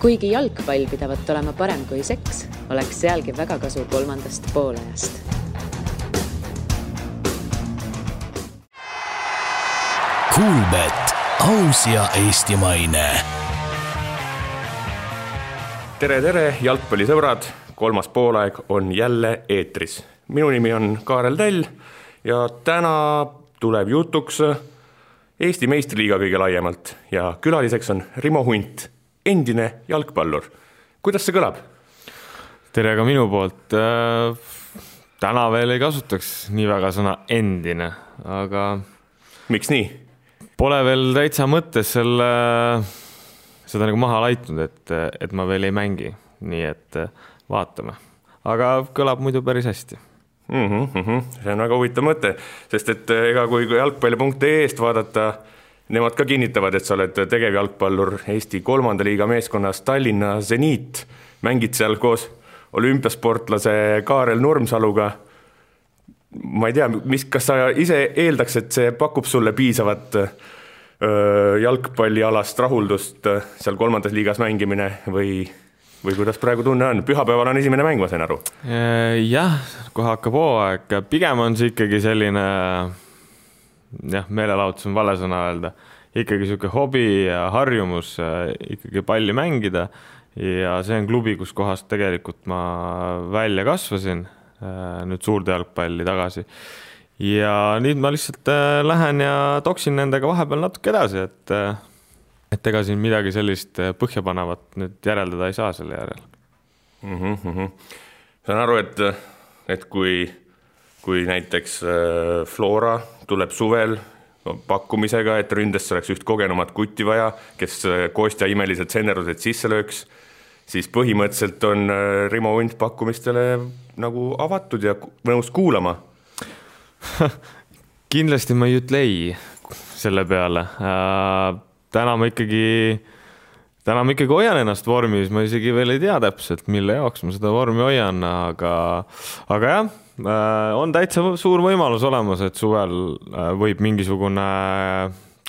Kuigi jalgpall pidavat olema parem kui seks, oleks sealgi väga kasu kolmandast poolajast. Kuulbet, aus ja eestimaine. Tere, jalgpallisõbrad! Kolmas poolaeg on jälle eetris. Minu nimi on Kaarel Täll ja täna tuleb jutuks Eesti meistriliiga kõige laiemalt ja külaliseks on Rimo Hunt, endine jalgpallur. Kuidas see kõlab? Tere ka minu poolt. Täna veel ei kasutaks nii väga sõna endine, aga... Miks nii? Pole veel täitsa mõttes seda nagu maha laitnud, et ma veel ei mängi. Nii et vaatame. Aga kõlab muidu päris hästi. See on väga huvitav mõte, sest et ega kui jalgpalli.ee-st vaadata, nemad ka kinnitavad, et sa oled tegevjalgpallur Eesti 3. liiga meeskonnas Tallinna Zeniit. Mängid seal koos olümpiasportlase Kaarel Nurmsaluga. Ma ei tea, kas sa ise eeldaks, et see pakub sulle piisavat jalgpallialast rahuldust seal 3. liigas mängimine või kuidas praegu tunne on? Pühapäeval on esimene mäng, ma sain aru. Jah, kohe hakkab hooaeg. Pigem on see ikkagi selline, meelelahutus on vale sõna öelda, ikkagi selline hobi ja harjumus ikkagi palli mängida ja see on klubi, kus kohast tegelikult ma välja kasvasin, nüüd suurde jalgpalli tagasi. Ja nüüd ma lihtsalt lähen ja toksin nendega vahepeal natuke edasi, et ega siin midagi sellist põhjapanevat nüüd järeldada ei saa selle järel. Saan aru, et kui näiteks Flora tuleb suvel pakkumisega, et ründest oleks üht kogenumat kutti vaja, kes Kostja imelised sennerused sisse lööks, siis põhimõtteliselt on Rimo Hunt pakkumistele nagu avatud ja nõus kuulama. Kindlasti ma ei ütle ei selle peale. Täna ma ikkagi hoian ennast vormis, ma isegi veel ei tea täpselt, mille jaoks ma seda vormi hoian, aga jah, on täitsa suur võimalus olemas, et suvel võib mingisugune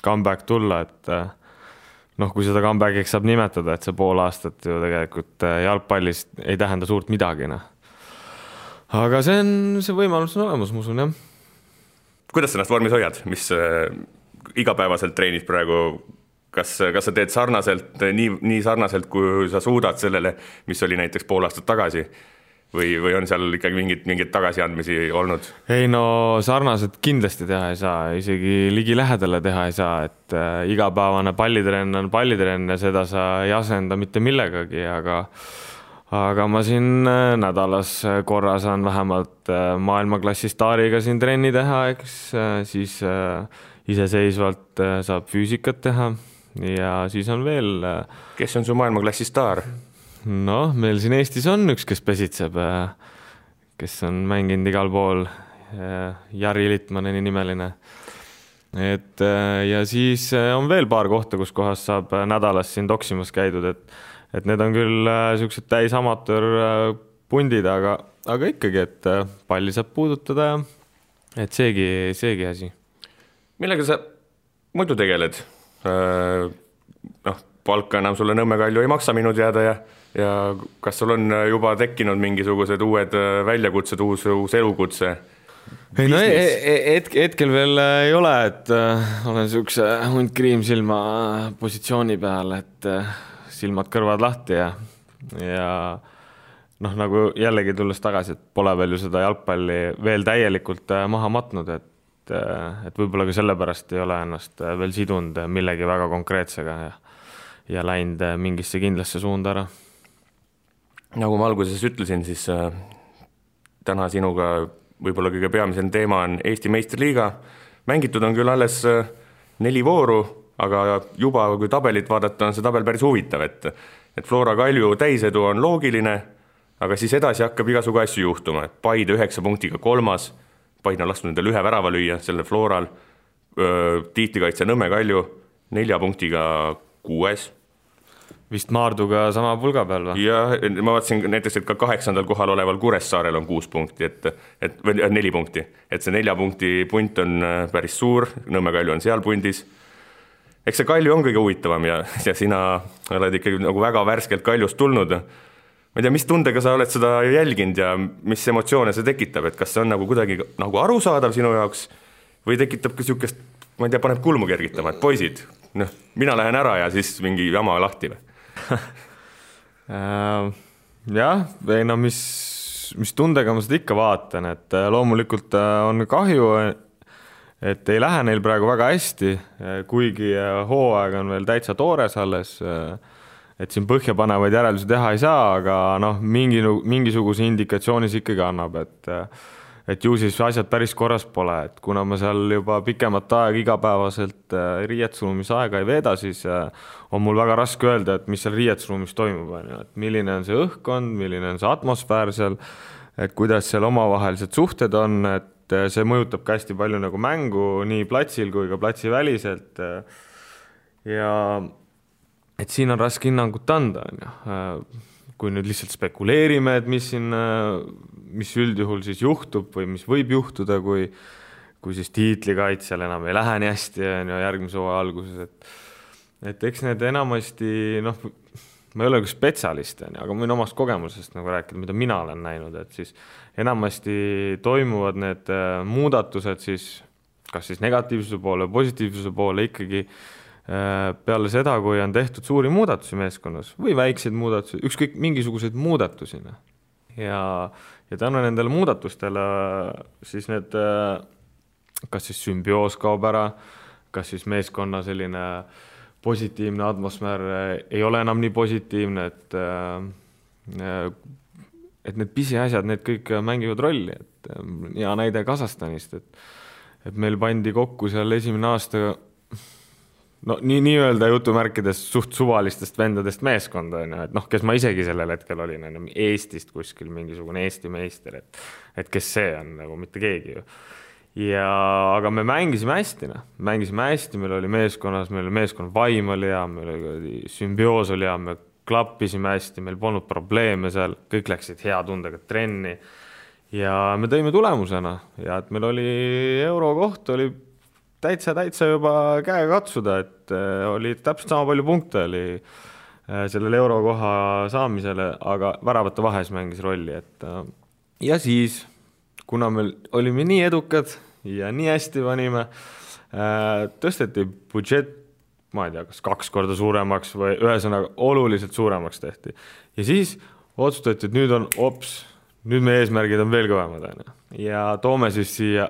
comeback tulla, et kui seda comebackiks saab nimetada, et see pool aastat ju tegelikult jalgpallist ei tähenda suurt midagi. Aga see võimalus on olemas, ma usun, jah. Kuidas sa ennast vormis hoiad? Mis igapäevaselt treenid praegu? Kas sa teed sarnaselt, nii sarnaselt, kui sa suudad sellele, mis oli näiteks pool aastat tagasi? Või on seal ikkagi mingid tagasiandmisi olnud? Ei sarnaselt kindlasti teha ei saa, isegi ligi lähedale teha ei saa, et igapäevane pallitrenn on pallitrenn ja seda sa ei asenda mitte millegagi, aga ma siin nädalas korra saan vähemalt maailmaklassi staariga siin trenni teha, eks siis iseseisvalt saab füüsikat teha ja siis on veel... Kes on su maailmaklassi staar? Meil siin Eestis on üks, kes pesitseb, kes on mänginud igal pool, Jari Littmaneni nimeline. Ja siis on veel paar kohta, kus kohas saab nädalas siin toksimas käidud, et need on küll sellised täis amatöör pundid, aga ikkagi, et palli saab puudutada ja et seegi asi. Millega sa muidu tegeled? Palka enam sulle Nõmme Kalju ei maksa minu teada ja kas sul on juba tekkinud mingisugused uued väljakutsed, uus elukutse? Hetkel veel ei ole, et olen sellise hunt kriimsilma positsiooni peal, et silmad kõrvad lahti ja nagu jällegi tulles tagasi, et pole veel ju seda jalgpalli veel täielikult maha matnud, et võib-olla ka sellepärast ei ole ennast veel sidunud millegi väga konkreetsega ja läinud mingisse kindlasse suunda ära. Nagu ma alguses ütlesin, siis täna sinuga võib-olla kõige peamisem teema on Eesti meistriliiga. Mängitud on küll alles 4 vooru, aga juba kui tabelit vaadata, on see tabel päris huvitav, et Flora Kalju täisedu on loogiline, aga siis edasi hakkab igasugu asju juhtuma. Paide 9 punktiga 3. Paide on lasknud endale 1 värava lüüa selle Floral. Tiitlikaitse Nõmme Kalju 4 punktiga 6. Vist Maarduga sama pulga peal või? Ja ma vaatasin näiteks, et ka 8. kohal oleval Kuressaarel on 6 punkti, või 4 punkti. Et see 4 punkti punt on päris suur, Nõmme Kalju on seal pundis. eks see Kalju on kõige huvitavam ja sina oled ikkagi nagu väga värskelt Kaljust tulnud. Ma ei tea, mis tundega sa oled seda jälginud ja mis emotsioone see tekitab, et kas see on nagu kuidagi nagu arusaadav sinu jaoks või tekitab ka niisugust, ma ei tea, paneb kulmu kergitama, et poisid, mina lähen ära ja siis mingi jama lahti või? Jah, ei no mis tundega ma seda ikka vaatan, et loomulikult on kahju, et ei lähe neil praegu väga hästi, kuigi hooaeg on veel täitsa toores alles, et siin põhjapanevaid järeldusi teha ei saa, aga mingisuguse indikatsioonis ikkagi annab, et ju siis asjad päris korras pole, et kuna ma seal juba pikemat aega igapäevaselt riietusruumis aega ei veeda, siis on mul väga raske öelda, et mis seal riietusruumis toimub, et milline on see õhkkond, milline on see atmosfäär seal, et kuidas seal omavahelised suhted on, et see mõjutab ka hästi palju nagu mängu nii platsil kui ka platsi väliselt ja et siin on raske hinnangut anda, kui nüüd lihtsalt spekuleerime, et mis üldjuhul siis juhtub või mis võib juhtuda, kui siis tiitlikaitsjal enam ei lähe nii hästi järgmise hooaja alguses, et eks need enamasti, ma ei ole ka spetsialist, aga ma võin omast kogemusest nagu rääkida, mida mina olen näinud, et siis enamasti toimuvad need muudatused siis kas siis negatiivsuse poole, positiivsuse poole ikkagi peale seda, kui on tehtud suuri muudatusi meeskonnas või väikseid muudatusi, ükskõik mingisuguseid muudatusi. Ja tänu nendele muudatustele siis need, kas siis sümbioos kaob ära, kas siis meeskonna selline positiivne atmosfäär ei ole enam nii positiivne, et need pisiasjad, need kõik mängivad rolli. Et hea näide Kasahstanist, et meil pandi kokku seal esimene aasta nii-öelda jutumärkides suht suvalistest vendadest meeskonda, et kes ma isegi sellel hetkel olin, Eestist kuskil mingisugune Eesti meister, et kes see on, nagu mitte keegi ju. Aga me mängisime hästi, meil oli meeskonnas, meil oli meeskonna vaim oli hea, meil oli sümbioos oli hea, me klappisime hästi, meil polnud probleeme seal, kõik läksid hea tundega trenni ja me tõime tulemusena ja et meil oli eurokoht, oli täitsa juba käega katsuda, et oli täpselt sama palju punkte oli sellele eurokoha saamisele, aga väravate vahes mängis rolli. Ja siis, kuna me olime nii edukad ja nii hästi panime, tõsteti budžet, ma ei tea, kas 2 korda suuremaks või ühesõnaga oluliselt suuremaks tehti. Ja siis otsustati, et nüüd meie eesmärgid on veel kõvemad. Ja toome siis siia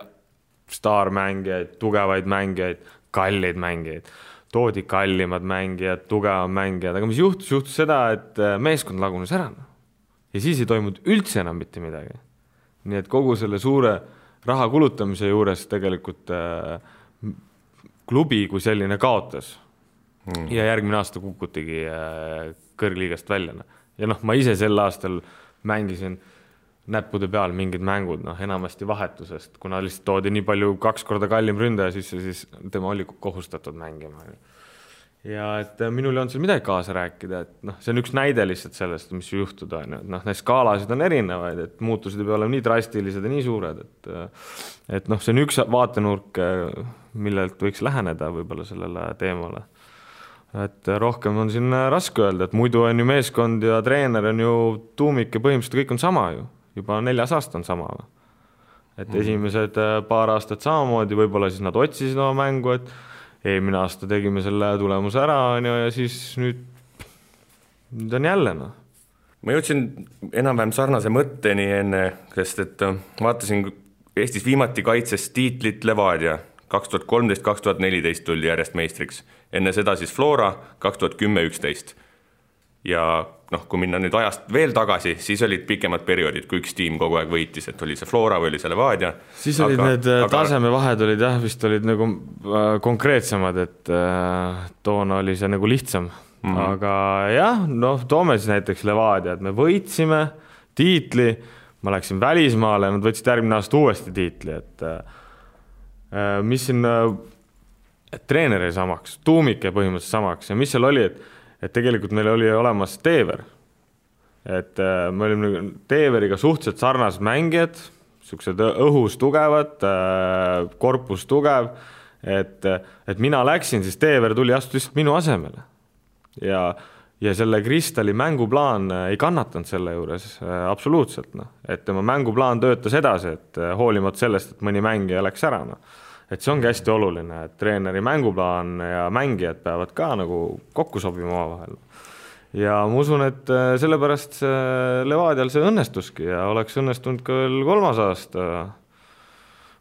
staarmängijaid, tugevaid mängijaid, kallid mängijaid. Toodi kallimad mängijad, tugevad mängijad, aga mis juhtus seda, et meeskond lagunes ära. Ja siis ei toimunud üldse enam mitte midagi. Nii et kogu selle suure raha kulutamise juures tegelikult klubi kui selline kaotas. Ja järgmine aasta kukutigi kõrgliigast välja. Ja ma ise sel aastal mängisin näppude peal mingid mängud, enamasti vahetusest, kuna lihtsalt toodi nii palju 2 korda kallim ründaja sisse, siis tema oli kohustatud mängima. Ja et minul ei olnud seal midagi kaasa rääkida, et see on üks näide lihtsalt sellest, mis juhtuda. Need skaalasid on erinevaid, et muutused ei pea olema nii drastilised ja nii suured, et see on üks vaatenurk, millelt võiks läheneda võib-olla sellele teemale. Et rohkem on siin raske öelda, et muidu on ju meeskond ja treener on ju tuumik ja põhimõtteliselt kõik on sama ju. Juba 4 aasta on sama. Et esimesed paar aastat samamoodi, võib-olla siis nad otsisid oma mängu, et eelmine aasta tegime selle tulemuse ära ja siis nüüd on jälle. Ma jõudsin enam-vähem sarnase mõtteni enne, sest et vaatasin Eestis viimati kaitses tiitlit Levadia 2013-2014 tuldi järjest meistriks. Enne seda siis Flora 2010-11. Ja kui minna nüüd ajast veel tagasi, siis olid pikemad perioodid, kui üks tiim kogu aeg võitis, et oli see Flora või oli see Levadia. Siis olid need tasemevahed olid vist olid nagu konkreetsemad, et toona oli see nagu lihtsam. Aga jah, toome siis näiteks Levadia, et me võitsime tiitli, ma läksin välismaale, nad võtsid järgmine aasta uuesti tiitli, et mis siin treeneri samaks, tuumike põhimõtteliselt samaks ja mis seal oli, et tegelikult meil oli olemas Teever. Et me olime Teeveriga suhteliselt sarnased mängijad, sellised õhus tugevad, korpus tugev, et mina läksin, siis Teever tuli astus lihtsalt minu asemele ja selle Kristali mänguplaan ei kannatanud selle juures absoluutselt, et tema mänguplaan töötas edasi, et hoolimata sellest, et mõni mängija läks ära, et see ongi hästi oluline, et treeneri mänguplaan ja mängijad peavad ka nagu kokku sobima omavahel. Ja ma usun, et sellepärast Levadial see õnnestuski ja oleks õnnestunud ka veel 3. aasta.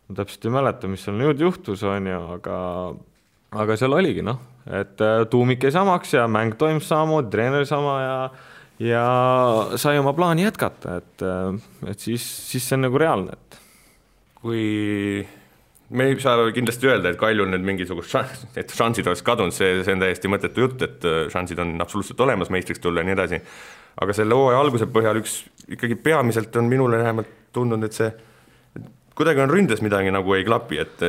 Ma täpselt ei mäleta, mis seal nüüd juhtus, on ju, aga seal oligi, et tuumik ei samaks ja mäng toimus samamoodi, treener sama ja sai oma plaani jätkata, et siis see on nagu reaalne. Kui me ei saa kindlasti öelda, et Kaljul nüüd mingisugust šansid oleks kadunud, see on täiesti mõttetu jutt, et šansid on absoluutselt olemas meistriks tulla ja nii edasi. Aga selle hooaja alguse põhjal ikkagi peamiselt on minule vähemalt tundnud, et see kuidagi on ründes midagi nagu ei klapi, et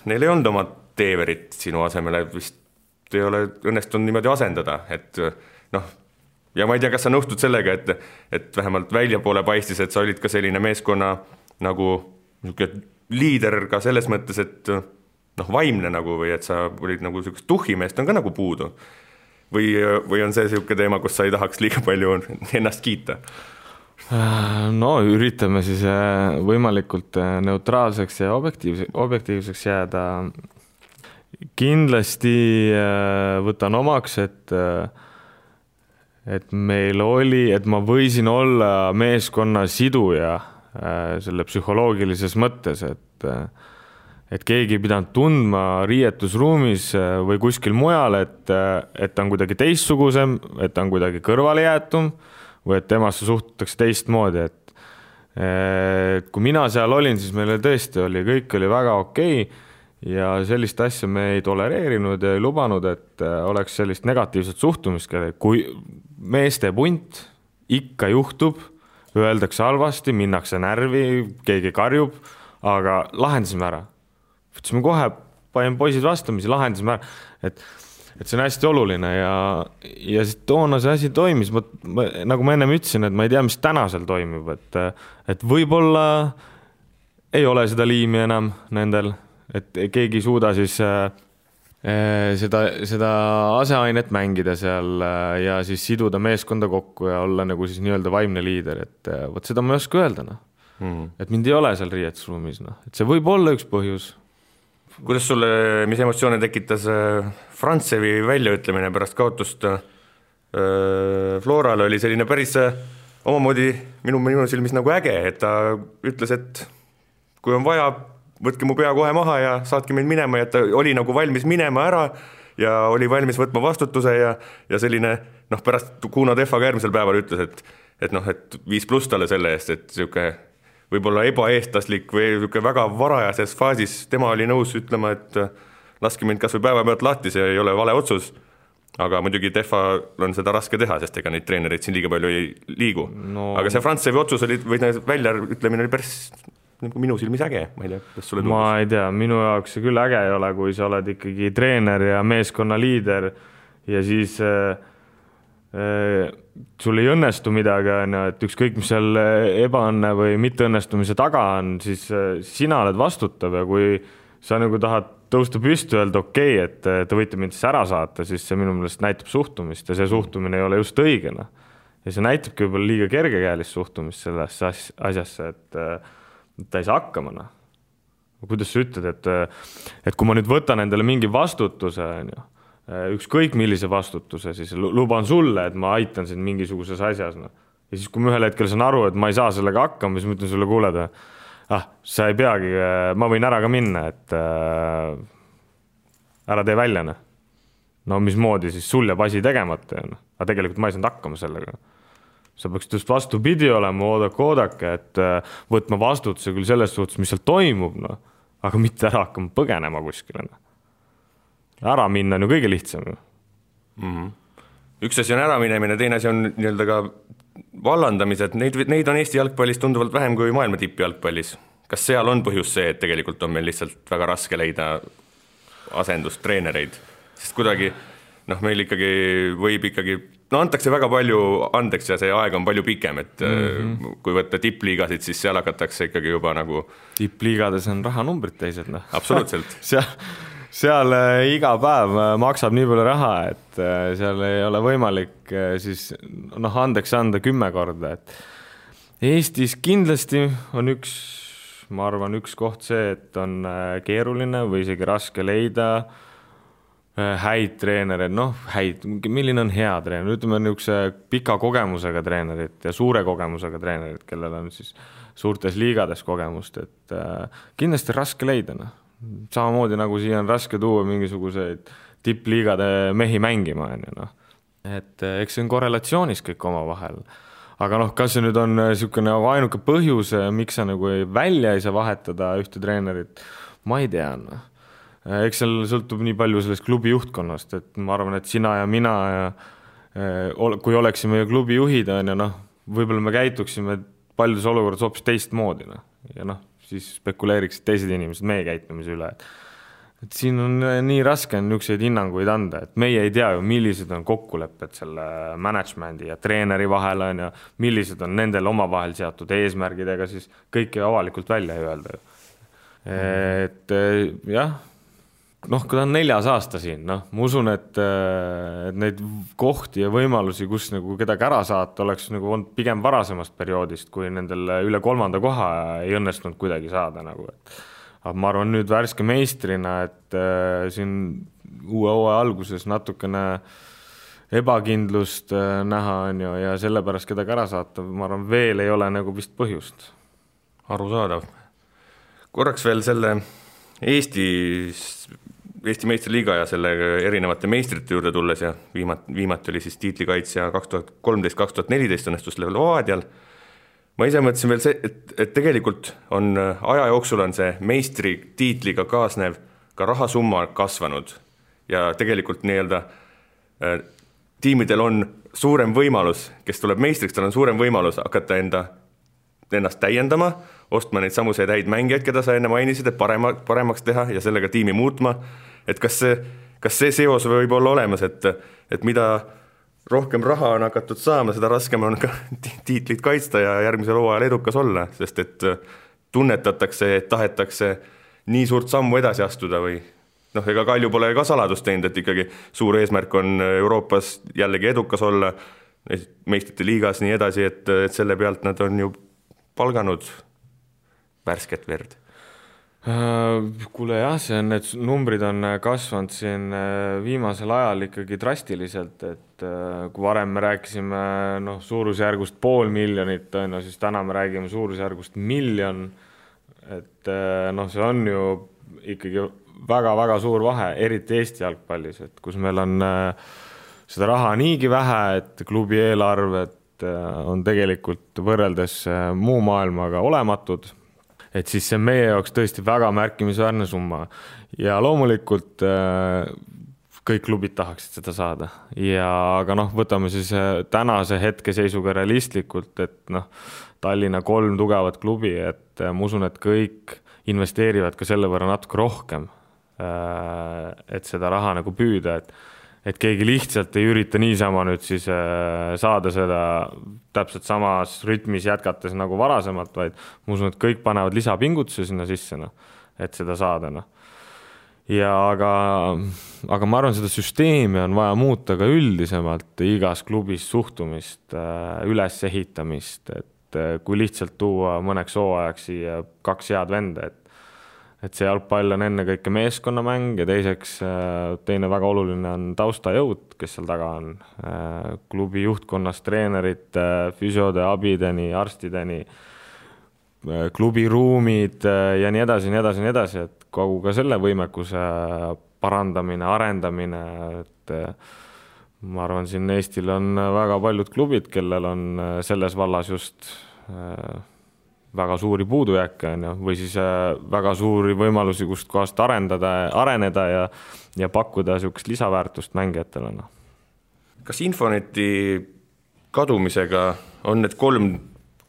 neil ei olnud oma Teeverit sinu asemele, vist ei ole õnnestunud niimoodi asendada, et ja ma ei tea, kas sa nõustud sellega, et vähemalt väljapoole paistis, et sa olid ka selline meeskonna nagu liider ka selles mõttes, et vaimne nagu või et sa olid nagu selline tuhimeest on ka nagu puudu või on see selline teema, kus sa ei tahaks liiga palju ennast kiita? No üritame siis võimalikult neutraalseks ja objektiivseks jääda. Kindlasti võtan omaks, et meil oli, et ma võisin olla meeskonna siduja selle psühholoogilises mõttes, et keegi ei pidanud tundma riietusruumis või kuskil mujal, et ta on kuidagi teistsugusem, et ta on kuidagi kõrvale jäetum või et temasse suhtutakse teistmoodi, et kui mina seal olin, siis meile tõesti oli, kõik oli väga okei ja sellist asja me ei tolereerinud ja ei lubanud, et oleks sellist negatiivset suhtumist, kui meeste punt ikka juhtub, öeldakse halvasti, minnakse närvi, keegi karjub, aga lahendasime ära. Võtsime kohe, panin poisid vastamisi, lahendasime ära, et see on hästi oluline ja toona see asi toimis. Nagu ma ennem ütlesin, et ma ei tea, mis täna seal toimib, et võib-olla ei ole seda liimi enam nendel, et keegi ei suuda siis seda aseainet mängida seal ja siis siduda meeskonda kokku ja olla nagu siis nii-öelda vaimne liider, et võt seda ma ei oska öelda, et mind ei ole seal riietusruumis, et see võib olla üks põhjus. Kuidas sulle, mis emotsioone tekitas Frantsevi väljaütlemine pärast kaotust Florale oli selline päris omamoodi minu silmis nagu äge, et ta ütles, et kui on vaja, võtke mu pea kohe maha ja saatke meid minema ja ta oli nagu valmis minema ära ja oli valmis võtma vastutuse ja selline, pärast Kuno Tehvaga järgmisel päeval ütles, et 5+ talle selle eest, et siuke võib-olla ebaeestlaslik või siuke väga varajases faasis tema oli nõus ütlema, et laske mind kas või päeva pealt lahti, see ei ole vale otsus, aga muidugi Tehva on seda raske teha, sest ega neid treenereid siin liiga palju ei liigu. Aga see Frantsevi otsus oli, või välja ütlemine oli päris minu silmis äge, ma ei tea, kas sulle tundus? Ma ei tea, minu jaoks see küll äge ei ole, kui sa oled ikkagi treener ja meeskonna liider ja siis sul ei õnnestu midagi, et ükskõik mis seal ebaõnne või mitteõnnestumise taga on, siis sina oled vastutav ja kui sa nagu tahad tõusta püsti öelda okei, et te võite mind siis ära saata, siis see minu meelest näitab suhtumist ja see suhtumine ei ole just õigena. Ja see näitabki võib-olla liiga kergekäelist suhtumist sellesse asjasse, et ta ei saa hakkama. Kuidas sa ütled, et kui ma nüüd võtan endale mingi vastutuse, ükskõik millise vastutuse, siis luban sulle, et ma aitan sind mingisuguses asjas. Ja siis, kui ma ühel hetkel saan aru, et ma ei saa sellega hakkama, siis ma ütlen sulle kuuleda, sa ei peagi, ma võin ära ka minna, et ära tee välja. No mismoodi siis sul jääb asi tegemata. Aga tegelikult ma ei saanud hakkama sellega. Sa peaks just vastupidi olema, oodake, et võtma vastutuse küll selles suhtes, mis seal toimub, aga mitte ära hakkama põgenema kuskile. Ära minna on ju kõige lihtsam. Üks asi on ära minemine, teine asi on nii-öelda ka vallandamised. Neid on Eesti jalgpallis tunduvalt vähem kui maailma tippjalgpallis. Kas seal on põhjus see, et tegelikult on meil lihtsalt väga raske leida asendust treenereid? Sest kuidagi meil ikkagi võib ikkagi, antakse väga palju andeks ja see aeg on palju pikem, et kui võtta tippliigasid, siis seal hakatakse ikkagi juba nagu... Tippliigades on rahanumbrid teised, noh. Absoluutselt. seal iga päev maksab nii palju raha, et seal ei ole võimalik siis andeks anda 10 korda, et Eestis kindlasti on ma arvan, üks koht see, et on keeruline või isegi raske leida häid treenereid, milline on hea treener, ütleme niisuguse pika kogemusega treenerid ja suure kogemusega treenerid, kellel on siis suurtes liigades kogemust, et kindlasti raske leida, samamoodi nagu siia on raske tuua mingisuguseid tippliigade mehi mängima, et eks see on korrelatsioonis kõik oma vahel. Aga kas see nüüd on niisugune ainuke põhjus, miks sa nagu välja ei saa vahetada ühte treenerit, ma ei tea. Eks seal sõltub nii palju sellest klubi juhtkonnast, et ma arvan, et sina ja mina, kui oleksime klubi juhid, võib-olla me käituksime paljudes olukorras hoopis teistmoodi. Ja siis spekuleeriksid teised inimesed meie käitumise üle. Et siin on nii raske niisuguseid hinnanguid anda, et meie ei tea ju, millised on kokkulepped selle managemendi ja treeneri vahel on ja millised on nendel omavahel seatud eesmärgidega, siis kõike avalikult välja ei öelda. Et jah, kui ta on 4. aasta siin, ma usun, et neid kohti ja võimalusi, kus nagu kedagi ära saata, oleks nagu olnud pigem varasemast perioodist, kui nendel üle 3. koha ei õnnestunud kuidagi saada. Aga ma arvan nüüd värske meistrina, et siin uue hooaja alguses natukene ebakindlust näha on ja sellepärast kedagi ära saata, ma arvan, veel ei ole nagu vist põhjust. Arusaadav. Korraks veel selle Eesti meistriliiga ja selle erinevate meistrite juurde tulles ja viimati oli siis tiitlikaitsja 2013-2014 õnnestus Levadial. Ma ise mõtlesin veel see, et tegelikult on aja jooksul on see meistri tiitliga kaasnev ka rahasumma kasvanud ja tegelikult tiimidel on suurem võimalus, kes tuleb meistriks, tal on suurem võimalus hakata ennast täiendama, ostma neid samuseid häid mängijaid, keda sa enne mainisid, et paremaks teha ja sellega tiimi muutma. Et kas see seos võib olla olemas, et mida rohkem raha on hakatud saama, seda raskem on ka tiitlit kaitsta ja järgmisel hooajal edukas olla, sest et tunnetatakse, et tahetakse nii suurt sammu edasi astuda või ega Kalju pole ka saladust teinud, et ikkagi suur eesmärk on Euroopas jällegi edukas olla, meistrite liigas nii edasi, et selle pealt nad on ju palganud värsket verd. Kuule jah, need numbrid on kasvanud siin viimasel ajal ikkagi drastiliselt, et kui varem me rääkisime suurusjärgust 500 000, siis täna me räägime suurusjärgust 1 miljon, et see on ju ikkagi väga-väga suur vahe, eriti Eesti jalgpallis, et kus meil on seda raha niigi vähe, et klubi eelarved on tegelikult võrreldes muu maailmaga olematud, et siis see meie jaoks tõesti väga märkimisväärne summa ja loomulikult kõik klubid tahaksid seda saada aga võtame siis tänase hetkeseisuga realistlikult, et Tallinna 3 tugevat klubi, et ma usun, et kõik investeerivad ka selle võrra natuke rohkem, et seda raha nagu püüda, et keegi lihtsalt ei ürita niisama nüüd siis saada seda täpselt samas rütmis jätkates nagu varasemalt, vaid ma usun, et kõik panevad lisapingutuse sinna sisse, et seda saada. Aga ma arvan, seda süsteemi on vaja muuta ka üldisemalt igas klubis suhtumist, ülesehitamist, et kui lihtsalt tuua mõneks hooajaks siia 2 head venda, et see jalgpall on enne kõike meeskonnamäng ja teiseks teine väga oluline on taustajõud, kes seal taga on. Klubi juhtkonnast treenerite, füsiode, abideni, arstideni, klubi ruumid ja nii edasi, et kogu ka selle võimekuse parandamine, arendamine, et ma arvan, siin Eestil on väga paljud klubid, kellel on selles vallas just väga suuri puudujääke või siis väga suuri võimalusi, kust kohast areneda ja pakkuda niisugust lisaväärtust mängijatele. Kas Infoneti kadumisega on need 3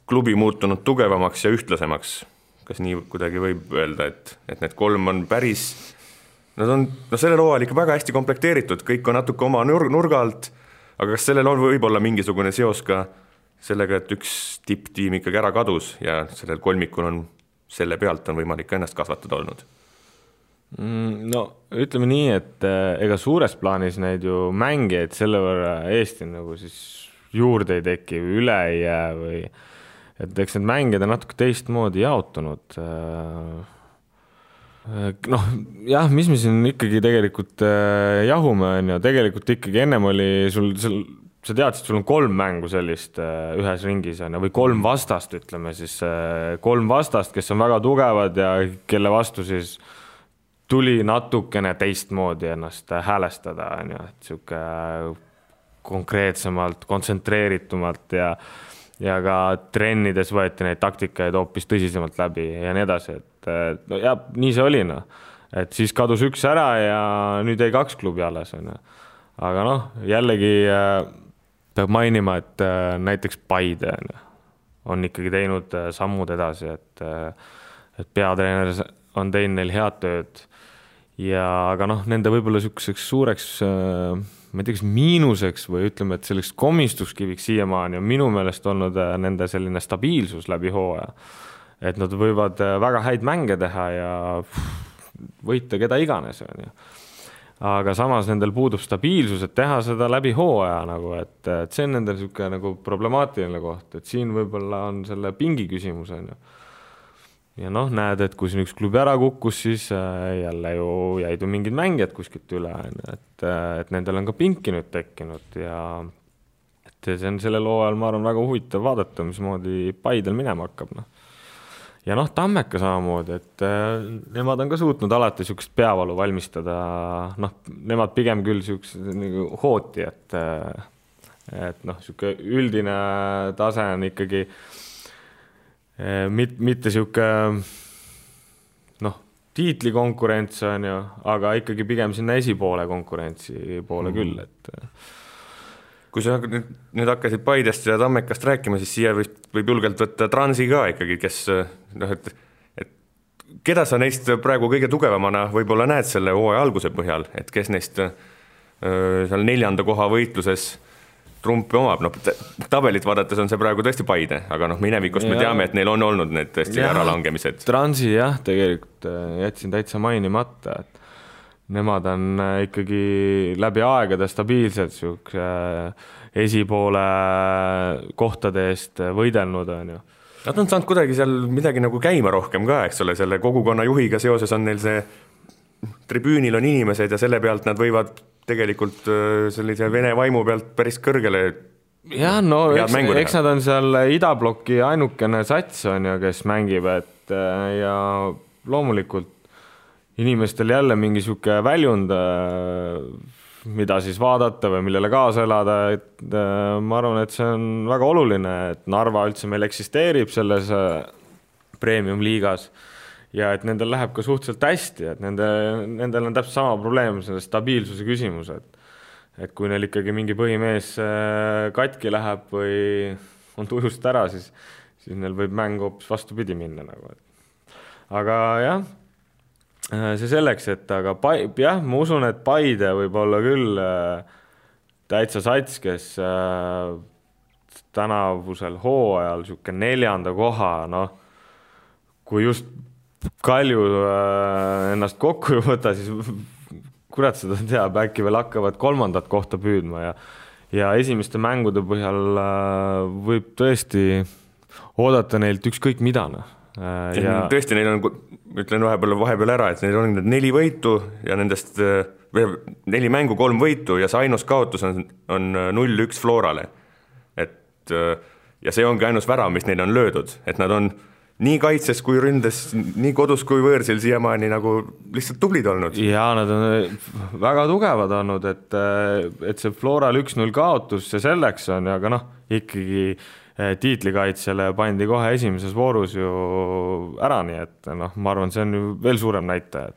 klubi muutunud tugevamaks ja ühtlasemaks? Kas nii kuidagi võib öelda, et need 3 on päris sellel hooajal ikka väga hästi komplekteeritud, kõik on natuke oma nurga alt, aga kas sellel on võib-olla mingisugune seos ka sellega, et üks tipptiim ikkagi ära kadus ja sellel kolmikul on selle pealt on võimalik ennast kasvatada olnud? No ütleme nii, et ega suures plaanis neid ju mängijaid selle võrra Eesti nagu siis juurde ei teki või üle ei jää või et eks need mängijad on natuke teistmoodi jaotunud. Noh, jah, mis me siin ikkagi tegelikult jahume on ja tegelikult ikkagi ennem oli sa teadsid, sul on 3 mängu sellist ühes ringis on, või 3 vastast, ütleme siis 3 vastast, kes on väga tugevad ja kelle vastu siis tuli natukene teistmoodi ennast häälestada, on ju, et siuke konkreetsemalt, kontsentreeritumalt ja ka trennides võeti neid taktikaid hoopis tõsisemalt läbi ja nii edasi, et no, ja, nii see oli, no. Et siis kadus 1 ära ja nüüd jäi 2 klubi alles, on ju. Aga noh, jällegi peab mainima, et näiteks Paide on ikkagi teinud sammud edasi, et peatreener on teinud neil head tööd ja aga noh, nende võib-olla selliseks suureks ma ei tea, kas miinuseks või ütleme, et selleks komistuskiviks siiamaani on minu meelest olnud nende selline stabiilsus läbi hooaja, et nad võivad väga häid mänge teha ja võita keda iganes, on ju. Aga samas nendel puudub stabiilsus, et teha seda läbi hooaja nagu, et see on nendel siuke nagu problemaatiline koht, et siin võib-olla on selle pingi küsimus, on ju. Ja noh, näed, et kui siin üks klubi ära kukkus, siis jälle ju jäid mingid mängijad kuskilt üle, et nendel on ka pinki nüüd tekkinud ja et see on sellel hooajal, ma arvan, väga huvitav vaadata, mismoodi Paidel minema hakkab, noh. Ja noh, Tammeka samamoodi, et nemad on ka suutnud alati siukest peavalu valmistada, noh, nemad pigem küll siukest nagu hooti, et noh, siuke üldine tase on ikkagi mitte siuke noh, tiitlikonkurents on ju, aga ikkagi pigem sinna esipoole konkurentsi poole küll, et kui sa nüüd hakkasid Paidest ja Tammekast rääkima, siis siia võib julgelt võtta Transi ka ikkagi, kes noh, et keda sa neist praegu kõige tugevamana võib-olla näed selle hooaja alguse põhjal, et kes neist seal 4. koha võitluses trumpi omab, noh, tabelit vaadates on see praegu tõesti Paide, aga noh, minevikust me teame, et neil on olnud need tõesti äralangemised. Transi jah, tegelikult jätsin täitsa mainimata, et nemad on ikkagi läbi aegade stabiilselt esipoole kohtade eest võidelnud, on ju. Nad on saanud kuidagi seal midagi nagu käima rohkem ka, eks ole, selle kogukonna juhiga seoses on neil see tribüünil on inimesed ja selle pealt nad võivad tegelikult sellise vene vaimu pealt päris kõrgele jah, no eks nad on seal idabloki ainukene sats on ju, kes mängib, et ja loomulikult inimestel jälle mingi siuke väljund, mida siis vaadata või millele kaasa elada, et ma arvan, et see on väga oluline, et Narva üldse meil eksisteerib selles premium-liigas ja et nendel läheb ka suhteliselt hästi, et nendel on täpselt sama probleem, selle stabiilsuse küsimus, et kui neil ikkagi mingi põhimees katki läheb või on tujust ära, siis neil võib mäng hoopis vastupidi minna nagu. Aga jah, see selleks, et aga jah, ma usun, et Paide võib olla küll täitsa sats, kes tänavusel hooajal siuke 4. koha, noh, kui just Kalju ennast kokku ei võta, siis kurat seda teab, äkki veel hakkavad 3. kohta püüdma ja esimeste mängude põhjal võib tõesti oodata neilt ükskõik mida, noh. Ja tõesti, neil on, ütlen vahepeal ära, et neil on 4 võitu ja nendest 4 mängu 3 võitu ja see ainus kaotus on 0-1 Florale. Et, ja see ongi ainus värav, mis neil on löödud, et nad on nii kaitses kui ründes, nii kodus kui võõrsil siiamaani nagu lihtsalt tublid olnud. Ja nad on väga tugevad olnud, et see Floral 1-0 kaotus, see selleks on, aga noh, ikkagi tiitlikaitsele pandi kohe esimeses voorus ju ära, nii et noh, ma arvan, see on ju veel suurem näitaja.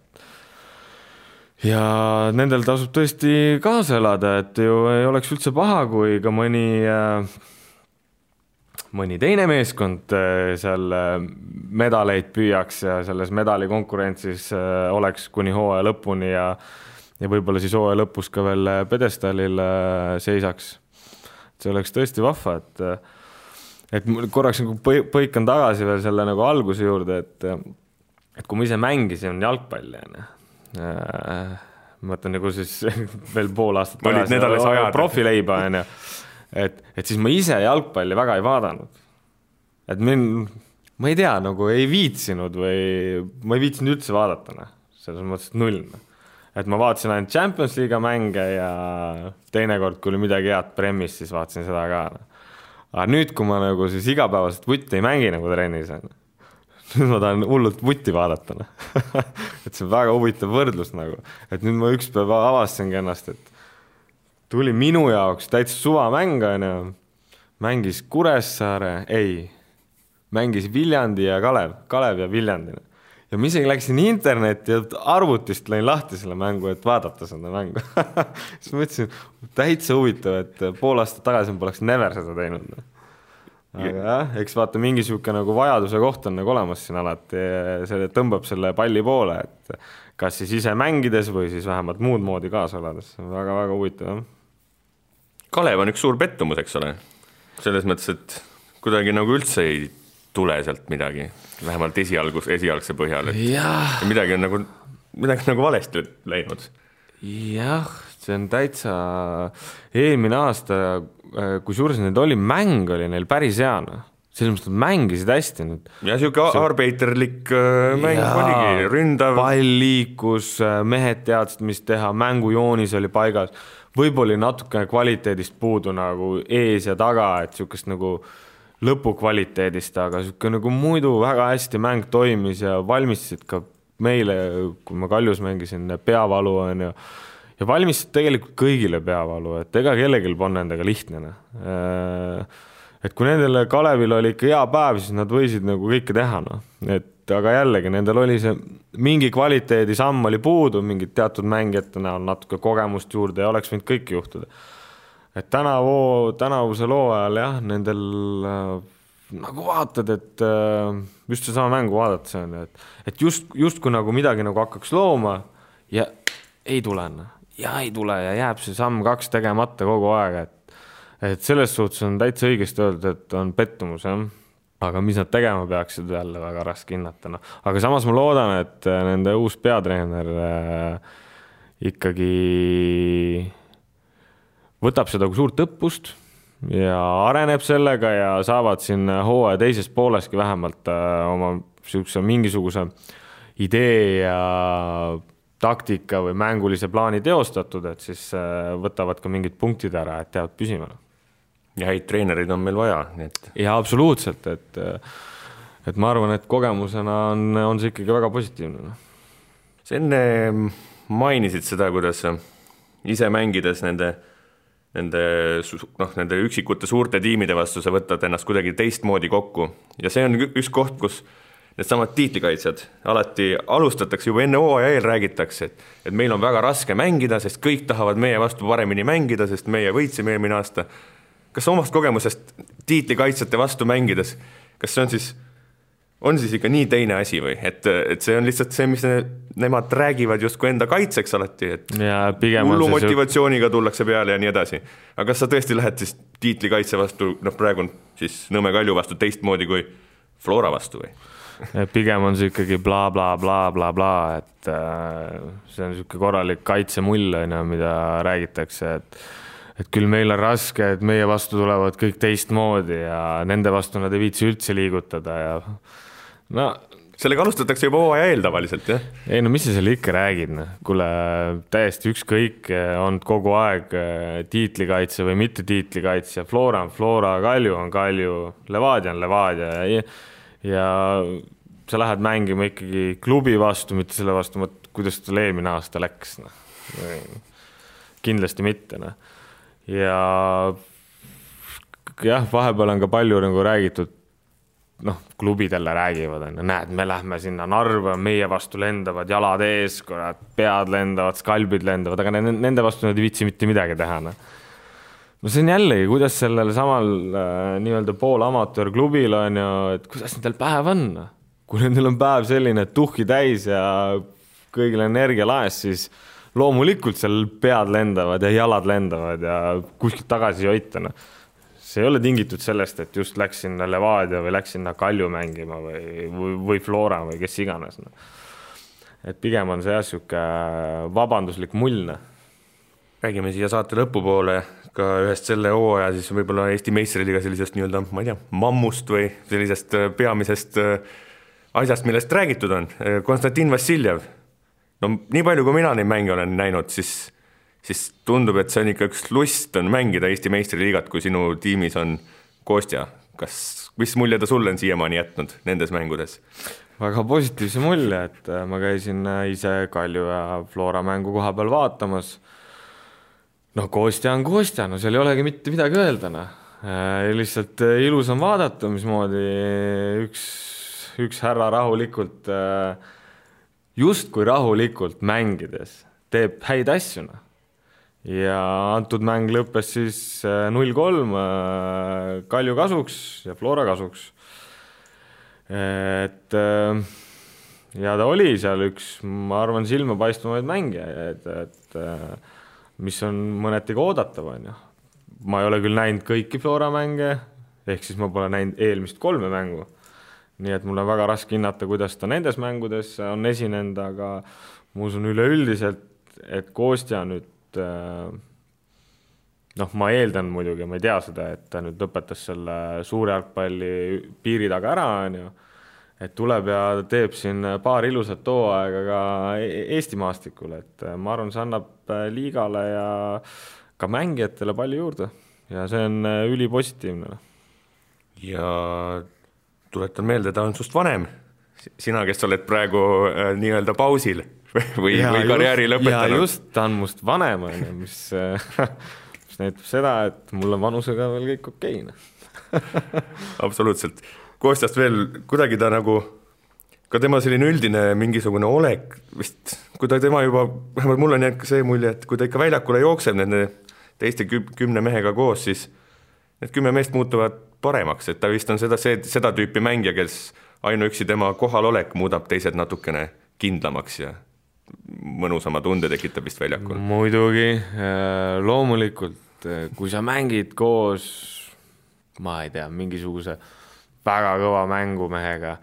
Ja nendel tasub tõesti kaasa elada, et ju ei oleks üldse paha, kui ka mõni mõni teine meeskond seal medaleid püüaks ja selles medalikonkurentsis oleks kuni hooaja lõpuni ja võib-olla siis hooaja lõpus ka veel pedestaalil seisaks. See oleks tõesti vahva, et korraks nagu põikan tagasi veel selle nagu alguse juurde, et kui ma ise mängisin jalgpalli, ma mõtlen nagu siis veel pool aastat tagasi profileiba, et siis ma ise jalgpalli väga ei vaadanud. Et ma ei tea, nagu ei viitsinud või ma ei viitsinud üldse vaadata, selles mõttes null. Et ma vaatasin ainult Champions League mänge ja teinekord, kui oli midagi head premis, siis vaatasin seda ka. Aga nüüd, kui ma nagu siis igapäevaselt vutti ei mängi nagu trennis, nüüd ma tahan hullult vutti vaadata. Et see on väga huvitav võrdlus nagu. Et nüüd ma üks päev avastasingi ennast, et tuli minu jaoks täitsa suvamäng, mängis Kuressaare, mängis Viljandi ja Kalev ja Viljandi. Ja ma isegi läksin internetti ja arvutist lõin lahti selle mängu, et vaadata seda mängu. Siis mõtlesin, täitsa huvitav, et pool aastat tagasi ma poleks never seda teinud. Aga jah, eks vaata mingisugune nagu vajaduse koht on nagu olemas siin alati, see tõmbab selle palli poole, et kas siis ise mängides või siis vähemalt muud moodi kaasa olades. Väga-väga huvitav. Kalev on üks suur pettumus, eks ole. Selles mõttes, et kuidagi nagu üldse ei tule sealt midagi, vähemalt esialgse põhjal. Midagi on nagu valesti läinud. Jah, see on täitsa eelmine aasta, kui suures need oli, mäng oli neil päris heana. Selles mõttes, et mängisid hästi nüüd. Ja siuke arbeiterlik mäng oligi, ründav. Pall liikus, mehed teadsid, mis teha, mängujoonis oli paigas. Võib-olla natukene kvaliteedist puudu nagu ees ja taga, et siukest nagu lõpukvaliteedist, aga siuke nagu muidu väga hästi mäng toimis ja valmistasid ka meile, kui ma Kaljus mängisin, peavalu on ja valmistasid tegelikult kõigile peavalu, et ega kellelgi on nendega lihtne. Et kui nendele Kalevil oli ikka hea päev, siis nad võisid nagu kõike teha. Aga jällegi, nendel oli see mingi kvaliteedi samm oli puudu, mingid teatud mängijate näol natuke kogemust juurde ja oleks võinud kõik juhtuda. Et tänavuse loo ajal jah, nendel nagu vaatad, et just see sama mängu vaadata see on, et just kui nagu midagi nagu hakkaks looma ja ei tule ja jääb see samm 2 tegemata kogu aeg, et selles suhtes on täitsa õigesti öeldud, et on pettumus, jah. Aga mis nad tegema peaksid jälle väga raske hinnata. No. Aga samas ma loodan, et nende uus peatreener ikkagi võtab seda kui suurt õppust ja areneb sellega ja saavad siin hooaja teises pooleski vähemalt oma mingisuguse idee ja taktika või mängulise plaani teostatud, et siis võtavad ka mingid punktid ära, et teavad püsima. Ja häid treenerid on meil vaja. Ja absoluutselt, et ma arvan, et kogemusena on see ikkagi väga positiivne. Sa enne mainisid seda, kuidas ise mängides nende üksikute suurte tiimide vastu sa võtad ennast kuidagi teistmoodi kokku. Ja see on üks koht, kus need samad tiitlikaitsjad alati alustatakse juba enne hooaja eel räägitakse, et meil on väga raske mängida, sest kõik tahavad meie vastu paremini mängida, sest meie võitsime eelmine aasta. Kas omast kogemusest tiitlikaitsjate vastu mängides, kas see on siis ikka nii teine asi või? Et see on lihtsalt see, mis nemad räägivad justkui enda kaitseks alati, et hullu motivatsiooniga tullakse peale ja nii edasi. Aga kas sa tõesti lähed siis tiitlikaitse vastu, praegu on siis Nõmme Kalju vastu teistmoodi kui Flora vastu või? Pigem on see ikkagi bla, bla, bla, bla, bla, et see on siuke korralik kaitsemull, mida räägitakse, et küll meil on raske, et meie vastu tulevad kõik teistmoodi ja nende vastu nad ei viitsi üldse liigutada ja sellega alustatakse juba hooaja eel tavaliselt, jah? Ei, mis sa selle ikka räägid? Kuule, täiesti ükskõik on kogu aeg tiitlikaitse või mitte tiitlikaitse, Flora on Flora, Kalju on Kalju, Levadia on Levadia ja sa lähed mängima ikkagi klubi vastu, mitte selle vastu, kuidas tal eelmine aasta läks. Kindlasti mitte. Ja vahepeal on ka palju nagu räägitud, klubidele räägivad, näed, me lähme sinna Narva, meie vastu lendavad jalad ees, pead lendavad, skalbid lendavad, aga nende vastu nad ei viitsi mitte midagi teha. no see on jällegi, kuidas sellel samal nii-öelda poolamatöörklubil on ju, et kuidas nendel päev on. Kui nendel on päev selline tuhki täis ja kõigil energia laes, siis loomulikult seal pead lendavad ja jalad lendavad ja kuskilt tagasi joitana. See ei ole tingitud sellest, et just läks sinna Levadia või läks sinna Kalju mängima või Flora või kes iganes. Et pigem on see jäsuke vabanduslik mullne. Räägime siia saate lõpupoole ka ühest selle hooaja siis võib-olla Eesti meistriliiga sellisest nii-öelda, ma ei tea, mammust või sellisest peamisest asjast, millest räägitud on. Konstantin Vassiljev. No nii palju, kui mina neid mänge olen näinud, siis tundub, et see on ikka üks lust on mängida Eesti meistriliigat, kui sinu tiimis on Kostja. Mis mulje ta sulle on siiamaani jätnud nendes mängudes? Väga positiivse mulje, et ma käisin ise Kalju ja Flora mängu koha peal vaatamas. No Kostja on Kostja, no seal ei olegi mitte midagi öeldana. Lihtsalt ilus on vaadata, mismoodi üks härra rahulikult, just kui rahulikult mängides teeb häid asjuna. Ja antud mäng lõppes siis 0-3 Kalju kasuks ja Flora kasuks. Et ja ta oli seal üks, ma arvan, silmapaistvumaid mänge, et mis on mõneti oodatav on. Ma ei ole küll näinud kõiki Flora mänge, ehk siis ma pole näinud eelmist 3 mängu. Nii et mul on väga raske hinnata, kuidas ta nendes mängudes on esinenud, aga ma usun üleüldiselt, et Kostja nüüd ma eeldan muidugi, ma ei tea seda, et ta nüüd lõpetas selle suure jalgpalli piiri taga ära, et tuleb ja teeb siin paar ilusat hooaega ka Eesti maastikul, et ma arvan, see annab liigale ja ka mängijatele palju juurde ja see on ülipositiivne. Ja tuletan meelde, ta on sust vanem. Sina, kes oled praegu nii-öelda pausil või karjääri lõpetanud. Ja just, ta on must vanem, mis näitab seda, et mul on vanusega veel kõik okeine. Absoluutselt. Kostjast veel kuidagi ta nagu, ka tema selline üldine mingisugune olek, vist, kui ta tema juba, vähemalt mul on see mulje, et kui ta ikka väljakule jookseb nende teiste 10 mehega koos, siis need 10 meest muutuvad paremaks, et ta vist on seda tüüpi mängija, kes ainuüksi tema kohalolek muudab teised natukene kindlamaks ja mõnusama tunde tekitab vist väljakul. Muidugi, loomulikult, kui sa mängid koos, ma ei tea, mingisuguse väga kõva mängumehega,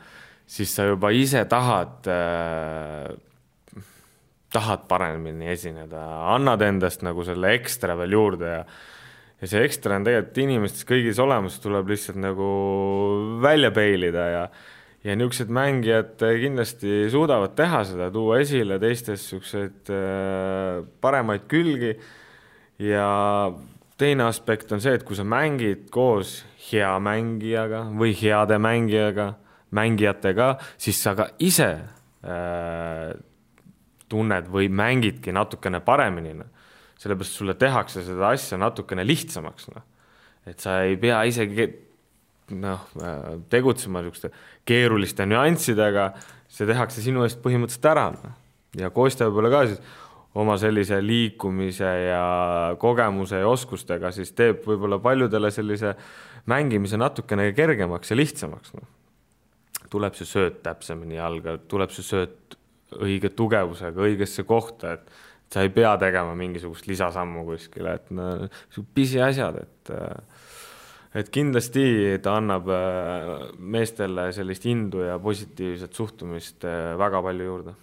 siis sa juba ise tahad paremini esineda, annad endast nagu selle ekstra veel juurde ja see ekstra on tegelikult inimestes kõigis olemas, tuleb lihtsalt nagu välja peilida ja niisugused mängijad kindlasti suudavad teha seda, tuua esile teistes niisugused paremaid külgi ja teine aspekt on see, et kui sa mängid koos hea mängijaga või heade mängijatega, siis sa ka ise tunned või mängidki natukene paremini. Sellepärast sulle tehakse seda asja natukene lihtsamaks. Et sa ei pea isegi tegutsema keeruliste nüanssidega, see tehakse sinu eest põhimõtteliselt ära. Ja Kostja võib-olla ka siis oma sellise liikumise ja kogemuse ja oskustega siis teeb võib-olla paljudele sellise mängimise natukene kergemaks ja lihtsamaks. Tuleb see sööt täpsemini jalga, tuleb see sööt õige tugevusega, õigesse kohta, et sa ei pea tegema mingisugust lisasammu kuskile, et pisi asjad, et kindlasti ta annab meestele sellist indu ja positiivset suhtumist väga palju juurde.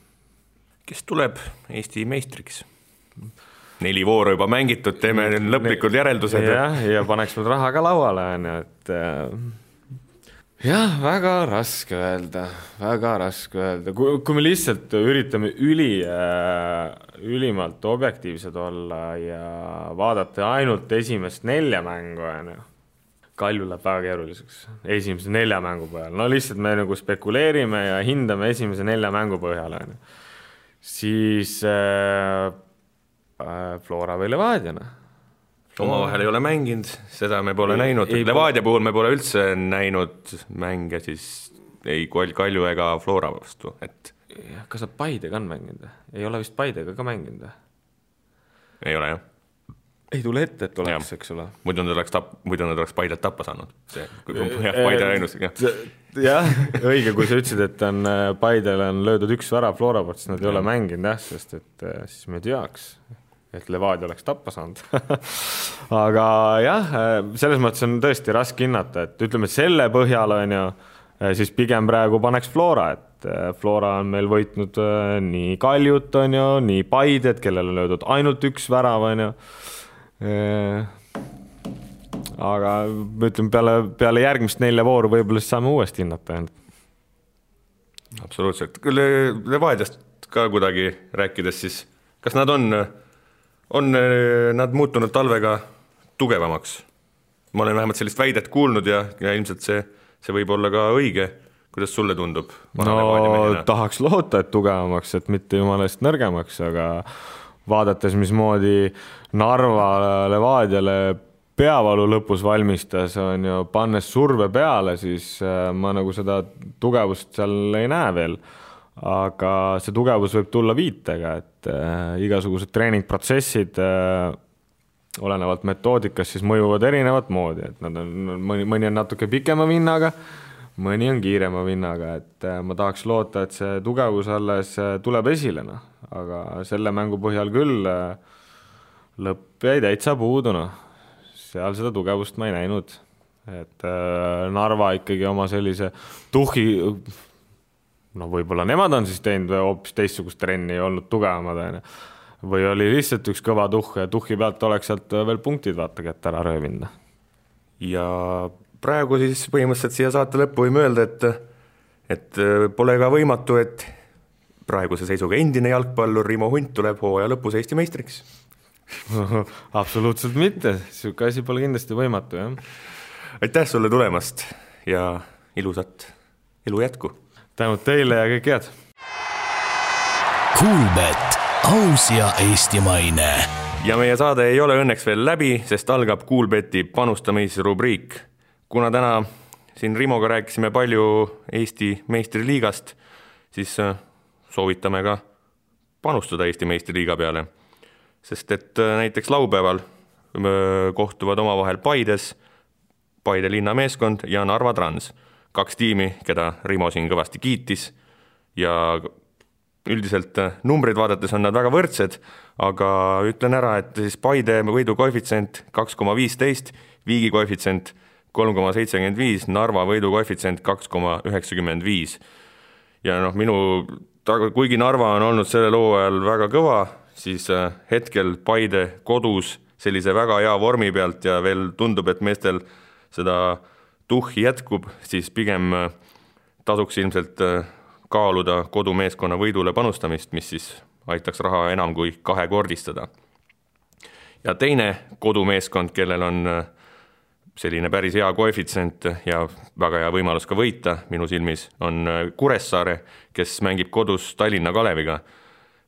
Kes tuleb Eesti meistriks? 4 vooru juba mängitud, teeme lõplikud järeldused. Ja paneks meil raha ka lauale, et jah, väga raske öelda. Kui me lihtsalt üritame ülimalt objektiivsed olla ja vaadata ainult esimest 4 mängu, Kalju läheb väga keeruliseks esimese 4 mängu põhjal. No lihtsalt me nagu spekuleerime ja hindame esimese 4 mängu põhjal. Siis Flora või Levadiana. Omavahel ei ole mänginud, seda me pole näinud. Levadia puhul me pole üldse näinud mänge siis ei Kalju ega Flora vastu. Kas sa Paidega on mänginud? Ei ole vist Paidega ka mänginud? Ei ole, jah. ei tule ette, et oleks, eks ole. Muidu nad oleks Paidet tappa saanud. Paide ainus. Jah, õige, kui sa ütlesid, et Paidele on löödud üks värav Flora poolt, siis nad ei ole mänginud, sest et siis me teaks, et Levadia oleks tappa saanud. Aga jah, selles mõttes on tõesti raske hinnata, et ütleme, et selle põhjal on ju, siis pigem praegu paneks Flora, et Flora on meil võitnud nii Kaljut on ju, nii Paidet, kellel on löödud ainult üks värav on ju. Aga ütleme, peale järgmist 4 vooru võib-olla siis saame uuesti hinnata. Absoluutselt. Levadiast ka kuidagi rääkides siis, kas nad on nad muutunud talvega tugevamaks? Ma olen vähemalt sellist väidet kuulnud ja ilmselt see võib olla ka õige. Kuidas sulle tundub? No tahaks loota, et tugevamaks, et mitte jumalast nõrgemaks, aga vaadates, mismoodi Narva Levadiale peavalu lõpus valmistas, on ju, pannes surve peale, siis ma nagu seda tugevust seal ei näe veel. Aga see tugevus võib tulla viitega, et igasugused treeningprotsessid olenevalt metoodikast siis mõjuvad erinevat moodi, et nad on, mõni on natuke pikema vinnaga, mõni on kiirema vinnaga, et ma tahaks loota, et see tugevus alles tuleb esile, aga selle mängu põhjal küll lõpp jäi täitsa puuduna. Seal seda tugevust ma ei näinud, et Narva ikkagi oma sellise tuhhi, võib-olla nemad on siis teinud hoopis teistsugust trenni ja olnud tugevamad, või oli lihtsalt üks kõva tuhh ja tuhhi pealt oleks sealt veel punktid vaata kätte ära röövinda. Ja praegu siis põhimõtteliselt siia saate lõppu võime öelda, et pole ka võimatu, et praeguse seisuga endine jalgpallur Rimo Hunt tuleb hooaja lõpus Eesti meistriks. Absoluutselt mitte, siuke asi pole kindlasti võimatu, jah. Aitäh sulle tulemast ja ilusat elu jätku. Tänud teile ja kõik head. Kuulbet, aus ja eestimaine. Ja meie saade ei ole õnneks veel läbi, sest algab Kuulbeti panustamisrubriik. Kuna täna siin Rimoga rääkisime palju Eesti meistriliigast, siis soovitame ka panustada Eesti meistriliiga peale. Sest et näiteks laupäeval kohtuvad omavahel Paides, Paide linnameeskond ja Narva Trans. 2 tiimi, keda Rimo siin kõvasti kiitis ja üldiselt numbrid vaadates on nad väga võrdsed, aga ütlen ära, et siis Paide võidu koefitsient 2,15, Viigi koefitsient 3,75, Narva võidu koefitsient 2,95. Ja kuigi Narva on olnud selle loo ajal väga kõva, siis hetkel Paide kodus sellise väga hea vormi pealt ja veel tundub, et meestel seda tuhhi jätkub, siis pigem tasuks ilmselt kaaluda kodumeeskonna võidule panustamist, mis siis aitaks raha enam kui 2-kordistada. Ja teine kodumeeskond, kellel on selline päris hea koefitsient ja väga hea võimalus ka võita minu silmis, on Kuressaare, kes mängib kodus Tallinna Kaleviga.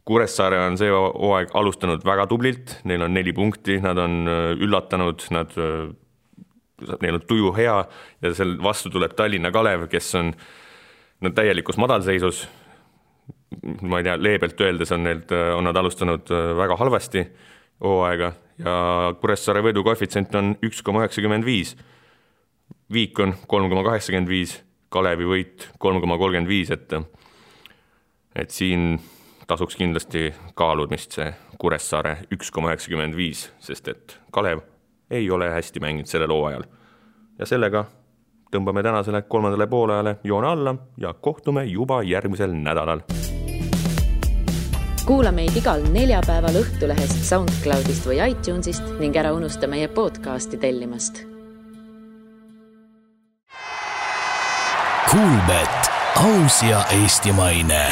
Kuressaare on see hooaeg alustanud väga tublilt, neil on 4 punkti, nad on üllatanud, neil on tuju hea ja sel vastu tuleb Tallinna Kalev, kes on täielikus madalseisus. Ma ei tea, leebelt öeldes on nad alustanud väga halvasti hooaega ja Kuressaare võidu koefitsient on 1,95. Viik on 3,85, Kalevi võit 3,35, et siin tasuks kindlasti kaalumist see Kuressaare 1,95, sest et Kalev ei ole hästi mänginud sellel hooajal. Ja sellega tõmbame tänasele 3. poolajale joone alla ja kohtume juba järgmisel nädalal. Kuula meid igal neljapäeval Õhtulehest, SoundCloudist või iTunesist ning ära unusta meie podcasti tellimast. Kuulbet, aus ja eestimaine.